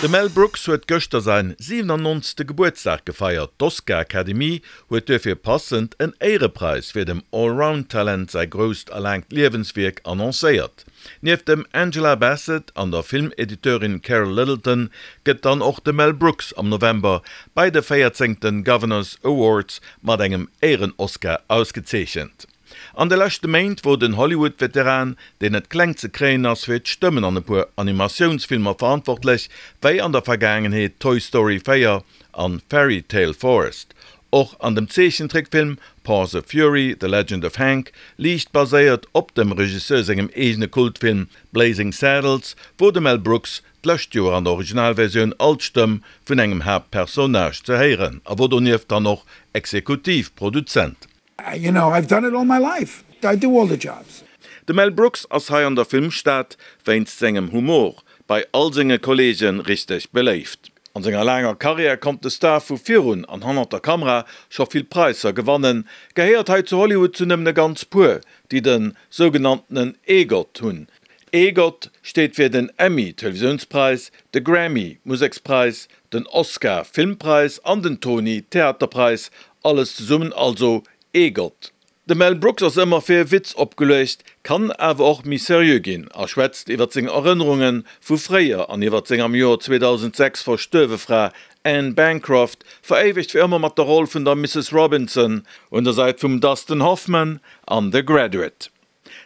De Mel Brooks huet gëschter säin 97. Gebuertsdag gefeiert. D'Oscar-Academie huet duerfir passend en Éierepräis fir dem Allround-Talent säi grousst a laangt Liewenswierk annoncéiert. Nieft dem Angela Bassett an der Filmediteurin Carol Littleton gëtt dann och de Mel Brooks am November bei de véierzéngte Governors Awards mat engem Éieren-Oscar ausgezeechent. An de leschte Méint wor den Hollywood-Veteran, deen net kleng ze kréien ass, fir d'Stëmmen an e puer Animatiounsfilmer verantwortlech, wéi an der Vergaangenheet Toy Story 4 an Fairy Tale Forest. Och an dem Zeechentrickfilm Paws of Fury, The Legend of Hank, liicht baséiert op dem Regisseur sengem eegene Kultfilm Blazing Saddles, wor de Mel Brooks d'lescht Joer an der Originalversioun als Stëmm vun engem Haaptpersonnage ze héieren a wor donieft dann och Exekutivproduzent. You know, I've done it all my life, I do all the jobs. De Mel Brooks ass hei an der Filmstad wéinst sengem Humor bei all senge Kolleege richteg beléift. An senger laanger Karriär konnt de Star vu virun an hannert der Kamera scho vill Praisser gewannen, gehéiert hei zu Hollywood zu nëmmen e ganz puer, déi de sougenanntenen EGOT hunn. EGOT steet fir den Emmy, Televisiounspreis, de Grammy, Musekspräis, den Oscar, Filmpräis, an den Tony, Theaterpräis, alles zesummen also EGOT. De Mel Brooks ass ëmmer fir e Witz opgeluecht, kann awer och méi seriö ginn a schwätzt iwwer seng Erënnerunge vu fréier an iwwer seng am Joer 2006 verstuerwe Fra Anne Bancroft, veréiwegt fir ëmmer mat der Roll vun der Mrs. Robinson un der Säit vum Dustin Hoffman an The Graduate.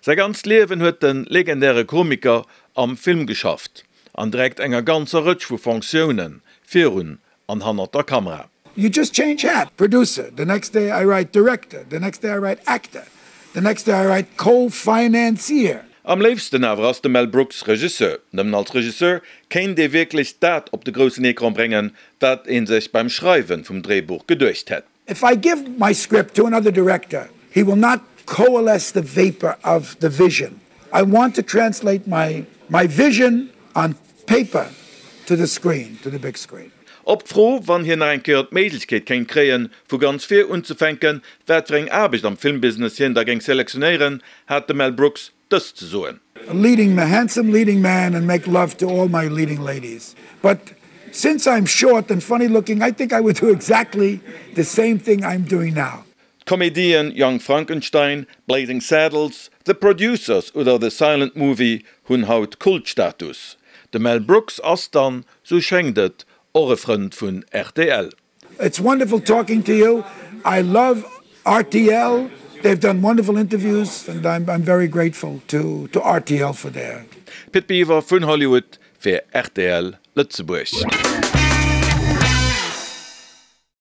Säi ganzt Liewen huet de legendäre Komiker am Film geschafft, an direkt enger ganzer Rëtsch vu Fonctioune virun an hannert der Kamera. You just change hat, producer, the next day I write director, the next day I write actor, the next day I write co-financier. Am léifsten awer ass de Mel Brooks Regisseur. Nëmmen als Regisseur kéint ee wierklech dat op de groussen Ecran bréngen, wat ee sech beim Schreiwe vum Dréibuch geduecht hätt. If I give my script to another director, he will not coalesce the vapor of the vision. I want to translate my my vision on paper to the screen, to the big screen. Op d'Fro, wann hien nach eng Kéier d'Méiglechkeet kéint kréien, vu ganz vir unzefänken, wat fir eng Aarbecht am Filmbusiness hien da géing selektionéieren, hat de Mel Brooks dëst ze soen. A leading man, handsome leading man and make love to all my leading ladies. But since I'm short and funny looking, I think I would do exactly the same thing I'm doing now. D'Komedien Young Frankenstein, Blazing Saddles, The Producers oder The Silent Movie hunn haut Kultstatus. De Mel Brooks ass dann, sou schéngt et, och e Frënd vun rtl. It's wonderful talking to you. I love rtl. They've done wonderful interviews and I'm I'm very grateful to to rtl for their. Pit Biwer vun Hollywood fir rtl Lëtzebuerg.